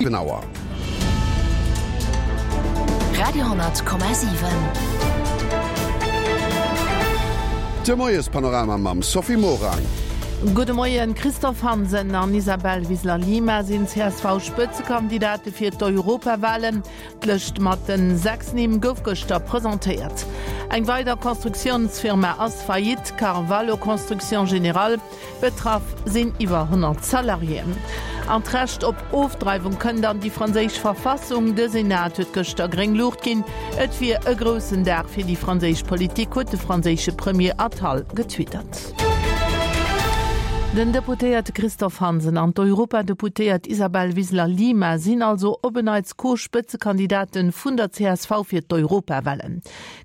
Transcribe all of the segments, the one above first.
7 Auer. Radio,7. De Moiespanorama mam Sophie Morang. Gudde Moien, Christophe Hansen an Isabel Wiseler-Lima sinn d'CSV-Spëtzekandidate fir d'Europawalen. D'Lëscht mat den 6 Nimm gouf gëschter presentéiert. Eng weider Constructiounsfirma ass faillite, Carvalho Construction Générale. Betraff sinn iwwer 100 Salariéen. An d'Recht op Ofdreiwung kënnt an déi franséisch Verfassung. De Senat huet gëschter gréng Luucht ginn. Et wier e groussen Dag fir déi franséisch Politik, huet de franséische Premier Attal getwittert. Den Deputéierte Christophe Hansen an d'Europadeputéiert Isabel Wiseler-Lima sinn also op en Neits Co-Spëtzekandidate vun der csv fir d'Europawalen.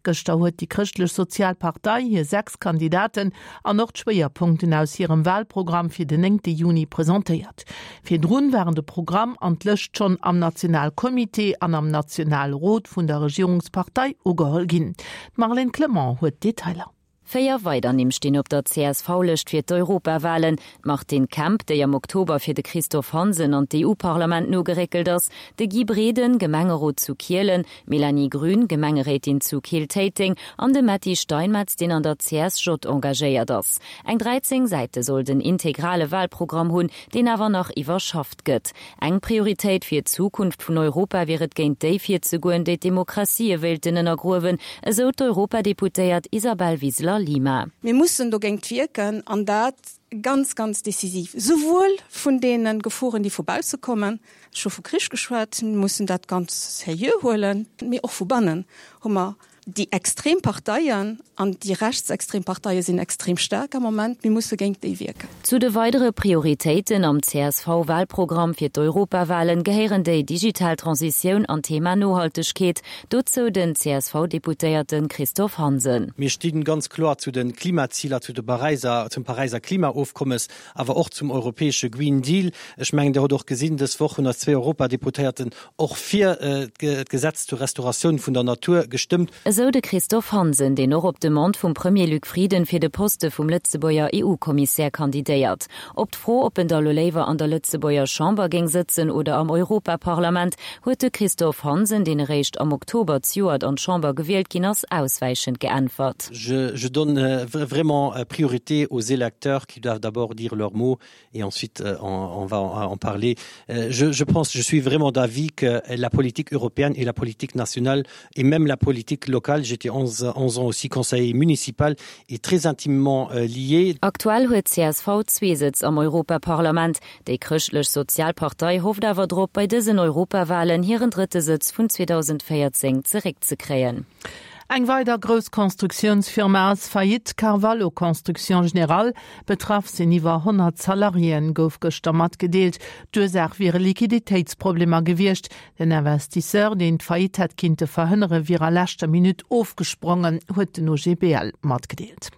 Gëschter huet déi Chrëschtlech-Sozial Partei hir 6 Kandidaten an och d'Schwéierpunkten aus hirem Wahlprogramm fir den néngte Juni presentéiert. Virdrun waren de Programm an d'Lëscht schonn am Nationalcomité an am Nationalrot vun der Regierungspartei ugeholl ginn. D'Marlène Clement huet d'Detailer. Véier weider Nimm stinn op der CSV-Lëscht fir d'Europawalen, d'Martine Kemp, déi am Oktober fir de Christophe Hansen an d'EU-Parlament nogeréckelt ass, de Guy Breden, Gemengerot zu Kielen, D'Mélanie Grün, Gemengeréitin zu Keel-Téiteng, an de Metty Steinmetz, deen an der CSJ engagéiert ass. Eng 13 Säite soll den integrale Wahlprogramm hunn, deen awer nach iwwerschafft gëtt. Eng Prioritéit fir d'Zukunft vun Europa wier et géint déi virzegoen, déi d'Demokratië wéilten ënnergruewen, esou d'Europadeputéiert Isabel Wiseler-Lima. Mir mussen dogéint wierken, an dat ganz, ganz decisiv, souwuel vun deene Geforen, déi vu bausse kommen, Ech hu vu Krich geschwat, mir mussen dat ganz seriö huelen, mee och vu bannen hu mer déi extrem Parteien, an déi rechtsextrem Parteie sinn extrem staark am Moment, mir musse géint déi wierken. Zu de weidere Prioritéiten am CSV-Wahlprogramm fir d'Europawahlen gehéieren déi digital Transitioun an d'Thema Nohaltegkeet. Dozou den CSV-Deputéierte Christophe Hansen. Mir sti ganz kloer zu de Klimaziler, zu de Paräiser, zum Paräiser Klimaofkommes. awer och zum europäesche Green Deal. Ech mengen, Dir hutt och gesinn, dës Woch hunn eis zwee Europadeputéierten och fir d'Gesetz zur Restauratioun vun der Natur gestëmmt. Esou de Christophe Hansen, deen och op Demande vum Premier Luc Frieden fir de Poste vum Lëtzebuerger EU-Kommissär kandidéiert. Op d'Fro, ob en da lo léiwer an der Lëtzebuerger Chamber géing sëtzen oder am Europaparlament, huet de Christophe Hansen, deen eréischt am Oktober zejoert an d'Chamber gewielt ginn ass, auswäichend geäntwert. Je donne vraiment priorité aux électeurs qui doivent d'abord dire leur mot et ensuite euh, on, on va en parler. Euh, je, je pense, je suis vraiment d'avis que la politique européenne et la politique nationale et même la politique locale, j'étais 11, 11 ans aussi conseiller municipal, est très intimement euh, liée. Aktuell huet csv zwee Sëtz am Europaparlament. Déi Chrëschtlech Sozial Partei hofft awer drop, bei dësen Europawalen hiren drëtte Sëtz vun 2014 zeréckzekréien. Eng weider grouss Constructiounsfirma ass faillite, Carvalho Construction Générale. Betraff sinn iwwer 100 Salariéen, gouf gëschter matgedeelt. D'Ursaach wiere Liquiditéitsproblemer gewiescht. Den Investisseur, deen d'Faillite hätt kinnte verhënnere, wier a leschter Minutt ofgesprongen, huet den OGBL matgedeelt.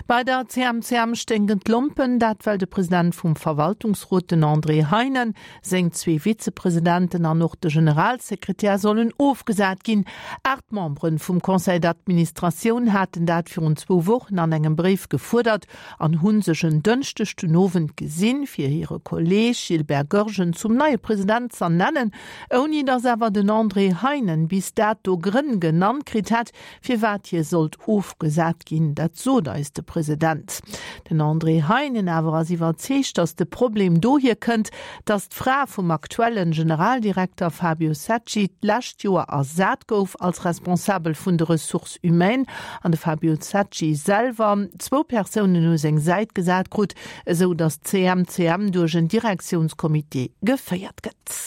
Bei der CMCM sténken d'Lompen, dat well de President vum Verwaltungsrot, den André Heinen, Seng zwee Vizepresidenten an och de Generalsekretär sollen ofgesat ginn. 8 Membere vum Conseil d'administratioun haten dat virun zwou Wochen an engem Bréif gefuerdert an hu sech en Dënschdeg den Owend gesinn, fir hire Kolleeg Gilbert Goergen zum neie President z'ernennen, ouni datt awer den André Heinen bis dato Grënn genannt kritt hätt, Firwat hie sollt ofgesat ginn, dat sot eis de President. Den André Heinen awer ass iwwerzeegt, datt de Problem dohier kënnt, datt d'Fra vum aktuellen Generaldirekter Fabio Secci d'lescht Joer ersat gouf als Responsabel vun de Ressources humaines an de Fabio Secci selwer zwou Persounen u seng Säit gesat krut, esou datt d'CMCM duerch en Direktiounscomité geféiert gëtt.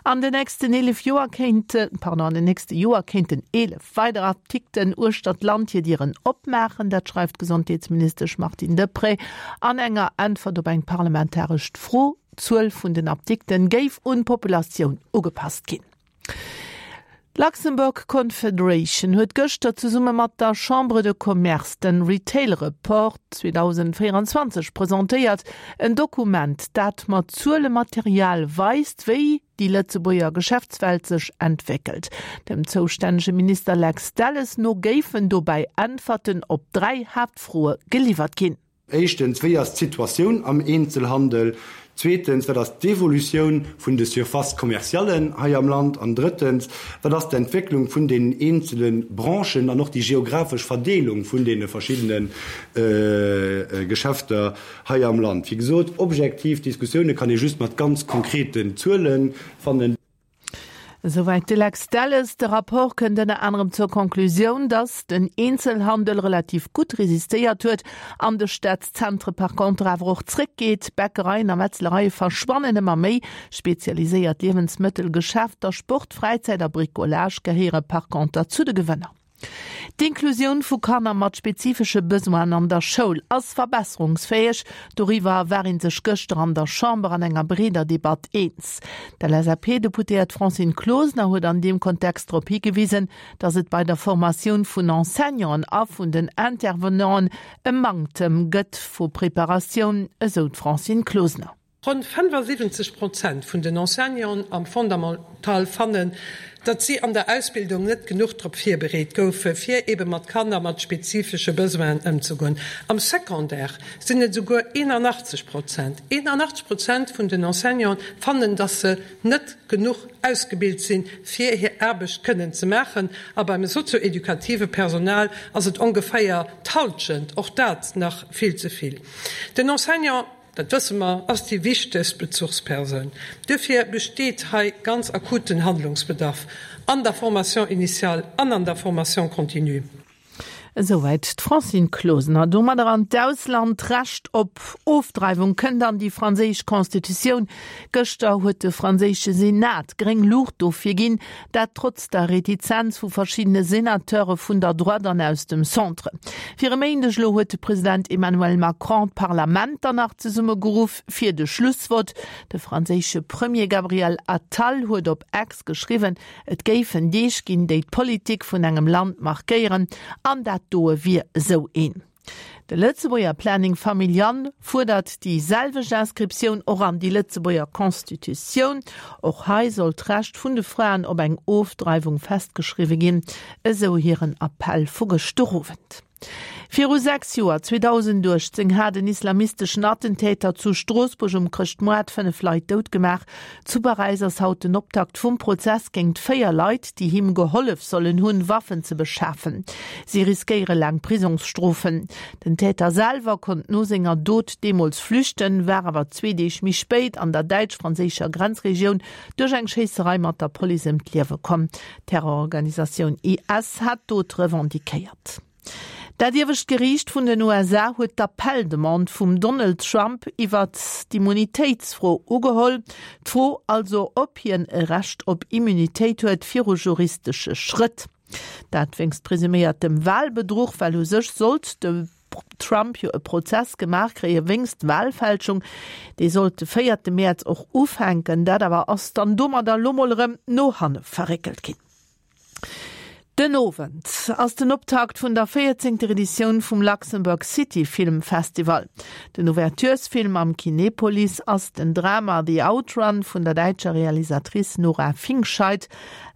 An den nächsten 11 Joer kéinte, pardon, an den nächste Joer kéinten 11 weider Apdikten uechter d'Land hir Dieren opmaachen. Dat schreift d'Gesondheetsministesch Martine Deprez an enger Äntwert op eng parlamentarescht Fro. D'Zuel vun den Apdikten géif un d'Populatioun ugepasst ginn. D'Luxembourg Confederation huet gëschter zesumme mat der Chambre de Commerce den Retail Report 2024 presentéiert, en Dokument, dat mat Zuelematerial weist, wéi déi Lëtzebuerger Geschäftswelt sech entwéckelt. Dem zoustännege Minister Lex Delles no géifen dobäi Äntwerten op 3 Haaptfroe geliwwert ginn. Éischtens, wéi ass d'Situatioun am Eenzelhandel? Zweetens, wat ass d'Evolutioun vun de Surfaces commerciallen hei am Land? An drëttens, wat ass d'Entwécklung vun deenen eenzele Branchen an och déi geographesch Verdeelung vun deene verschiddene Geschäfter hei am Land? Wéi gesot, objektiv Diskussioune kann ee just mat ganz konkreten Zuele fannen. Esouwäit de Lex Delles. De Rapport kënnt ënner anerem zur Conclusioun, datt den Eenzelhandel relativ gutt resistéiert huet, an de Stadzentre par contre awer och zréckgeet. Bäckereien a Metzlereie verschwannen ëmmer méi, spezialiséiert Liewensmëttelgeschäfter, Sport, Fräizäit a Bricolage gehéiere par conter zu de Gewënner. D'Inklusioun vu Kanner mat spezifesche Besoinen an der Schoul ass verbesserungsfäeg. Doriwwer war ee sech gëschter an der Chamber an enger breeder Debatt eens. D'LSAP-Deputéiert Francine Closener huet an deem Kontext drop higewisen, datt et bei der Formatioun vun Enseignanten a vun den Intervenanten e Manktem gëtt vu Preparatioun, esou d'Francine Closener. Ronn 75 Prozent vun den Enseignanten am Fondamental fannen, datt si an der Ausbildung net genuch drop virbereet goufe fir ebe mat Kanner mat spezifesche Besoinen ëmzegoen. Am Secondaire sinn et esouguer 81 Prozent. 81 Prozent vun den Enseignanten fannen, datt se net genuch ausgebilt sinn, fir hir Aarbecht kënnen ze maachen. A beim sozio-edukative Personal ass et ongeféier d'Hallschent, och dat nach vill ze vill. Den Enseignant. Dat wësse mer, ass déi wichtegst Bezuchspersoun. Duerfir besteet hei ganz akuten Handlungsbedarf an der Formation initiale an an der Formation continue. Esouwäit d'Francine Closener. Domadder an d'Ausland. D'Recht op Ofdreiwung kënnt an déi franséisch Constitutioun. Gëschter huet de franséische Senat gréng Luucht dofir ginn, dat trotz der Retizenz vu verschiddene Senateure vun der Droite an aus dem Centre. Fir e Méindeg elo huet de President Emmanuel Macron d'Parlament dann nach zesummegeruff fir de Schlussvott. De franséische Premier Gabriel Attal huet op X geschriwwen, et géifen Deeg ginn, déi d'Politik vun engem Land markéieren, an dat doe wier esou een. De Lëtzebuerger Planning Familial fuerdert déi selwecht Inscriptioun och an déi Lëtzebuerger Constitutioun. Och hei soll d'Recht vun de Fraen op eng Ofdreiwung festgeschriwwe ginn, esou hiren Appell vu gëschter Owend. Viru 6 Joer, 2018, hat en islamisteschen Attentäter zu Stroossbuerg um Chrëschtmoart 5 Leit dout gemaach. Zu Paräis ass haut den Optakt vum Prozess géingt 4 Leit, déi him gehollef sollen hunn, Waffen ze beschafen. Si riskéiere laang Prisongsstrofen. Den Täter selwer konnt no senger Dot deemools flüchten, war awer zwee Deeg méi spéit an der däitsch-franséischer Grenzregioun duerch eng Schéisserei mat der Police ëm d'Liewe komm. D'Terrororganisatioun IS hat d'Dot revendiquéiert. Dat iewescht Geriicht vun den USA huet d'Appell-Demande vum Donald Trump iwwert d'Immunitéitsfro ugeholl. D'Fro also, ob hien e Recht op Immunitéit huet viru juristesche Schrëtt. Dat wéinst presuméiertem Walbedruch, well u sech sollt de Trump jo e Prozess gemaach kréie wéinst Walfälschung. Dee sollt de véierte Mäerz och ufänken. Dat awer ass dann domadder lo mol erëm no hanne verréckelt ginn. Den Owend ass den Optakt vun der véierzéngter Editioun vum Luxembourg City Film Festival. Den Ouverturesfilm am Kinepolis ass den Drama The Outrun vun der däitscher Realisatrice Nora Fingscheidt.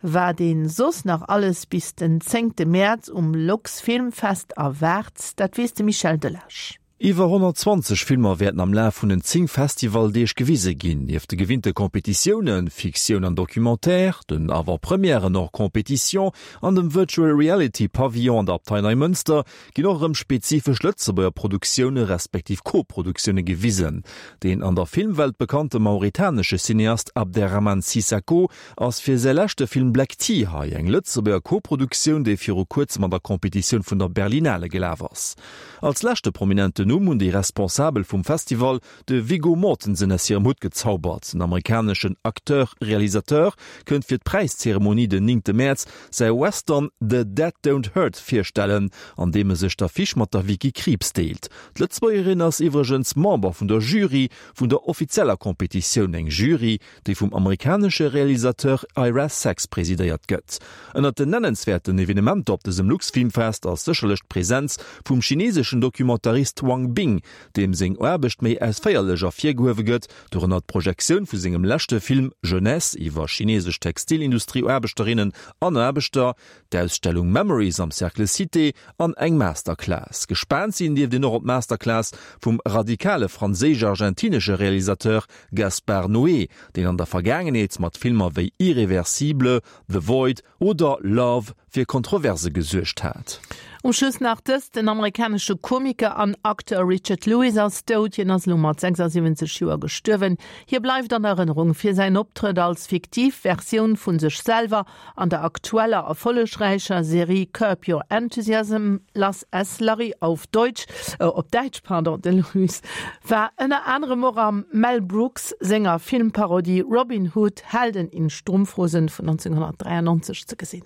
Wat een soss nach alles bis den zéngte Mäerz um LuxFilmFest erwaart, dat weess de Michel Delage. Iwwer 120 Filmer wäerten am Laf vun den 10 Festivaldeeg gewise ginn. Nieft de gewinnte Competitiounen, Fiktioun an Documentaire, den Avant-Premièren hors compétition an dem Virtual Reality Pavillon an der Abtei Neimënster ginn och erëm spezifesch Lëtzebuerger Produktioune respektiv Co-Produktioune gewisen. Deen an der Filmwelt bekannte mauritanesche Cineast Abderrahmane Sissako ass fir säi leschte Film Black Tea hei, eng Lëtzebuerger Co-Produktioun, déi viru kuerzem an der Competitioun vun der Berlinale gelaf ass. Als leschte prominenten Numm hunn déi Responsabel vum Festival de Viggo Mortensen aus hirem Hutt gezaubert. Den amerikaneschen Acteur-Realisateur kënnt fir d'Präiszeremonie den néngte Mäerz säi Western The Dead Don't Hurt virstellen, an deem e sech d'Affiche mat der Vicky Krieps deelt. D'Lëtzebuergerin ass iwwregens Member vun der Jury vun der offizieller Competitioun, eng Jury, déi vum amerikanesche Realisateur Ira Sachs presidéiert gëtt. Ënnert den nennenswäerten Evenementer op dësem Luxfilmfest ass sécherlech d'Presenz vum chineseschen Documentarist Wang. Wang Bing, deem seng Aarbecht méi ausféierlech ervirgehuewe gëtt, dorënner d'Projektioun vu sengem leschte Film Jeunesse iwwer chinesesch Textilindustrieaarbechterinnen an Aarbechter, d'Ausstellung Memories am Cercle Cité an eng Masterclass. Gespaant sinn dierft een och op d'Masterclass vum radikale franséisch-argentinesche Realisateur Gaspar Noé, deen an der Vergaangenheet mat Filmer wéi Irréversible, The Void oder Love fir Kontroverse gesuergt hat. Um Schluss nach dëst, Den amerikanesche Komiker an Acteur Richard Lewis ass dout. Hien ass elo mat 76 Joer gestuerwen. Hie bleift an Erënnerung fir säin Optrëtt als fiktiv Versioun vu sech selwer an der aktueller erfollegräicher Serie Curb Your Enthusiasm, Lass es Larry auf Deutsch, op Däitsch, pardon. De Lewis war ënner anerem och am Mel Brooks senger Filmparodie Robin Hood, Helden in Strumpfhosen vun 1993 ze gesinn.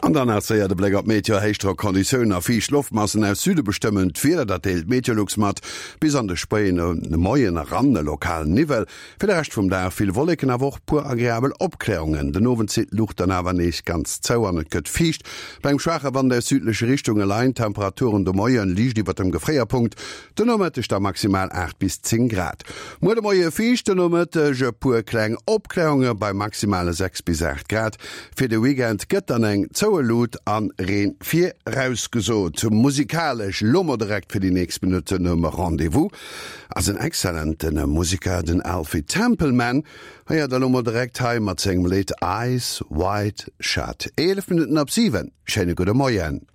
An dann nach séier de Bléck op d'Meteo, Héichdrockonditiounen a fiicht Loftmassen aus Süde bestëmmen d'Wieder, dat deelt d'Meteolux mat. Bis an de spéien Moien eran e lokalen Niwwel. Fir de Rescht vum Dag vill Wolleken, awer och puer agreabel Opklärungen. Den Owend zitt d'Luucht dann awer nees ganz zou an et gëtt fiicht. Bei engem schwaache Wand aus südleche Richtunge leien d'Temperaturen de Moie liicht iwwert dem Gefréierpunkt, den Nomëtteg da maximal 8 bis 10 Grad. Muer de Moie fiicht, den Nomëtteg e puer kleng Opklärunge bei maximale 6 bis 8 Grad. Fir de Weekend gëtt dann eng zoue Luut an Reen virausgesot. Musikalesch lo mol direkt fir déi nächst Minutten um Rendez-vous ass en excellenten Musiker, den Alfie Templeman. Héiert der lo mol direkt hei mat sengem Lidd Eyes Wide Shut. 11 Minutten op 7, schéine gudde Moien.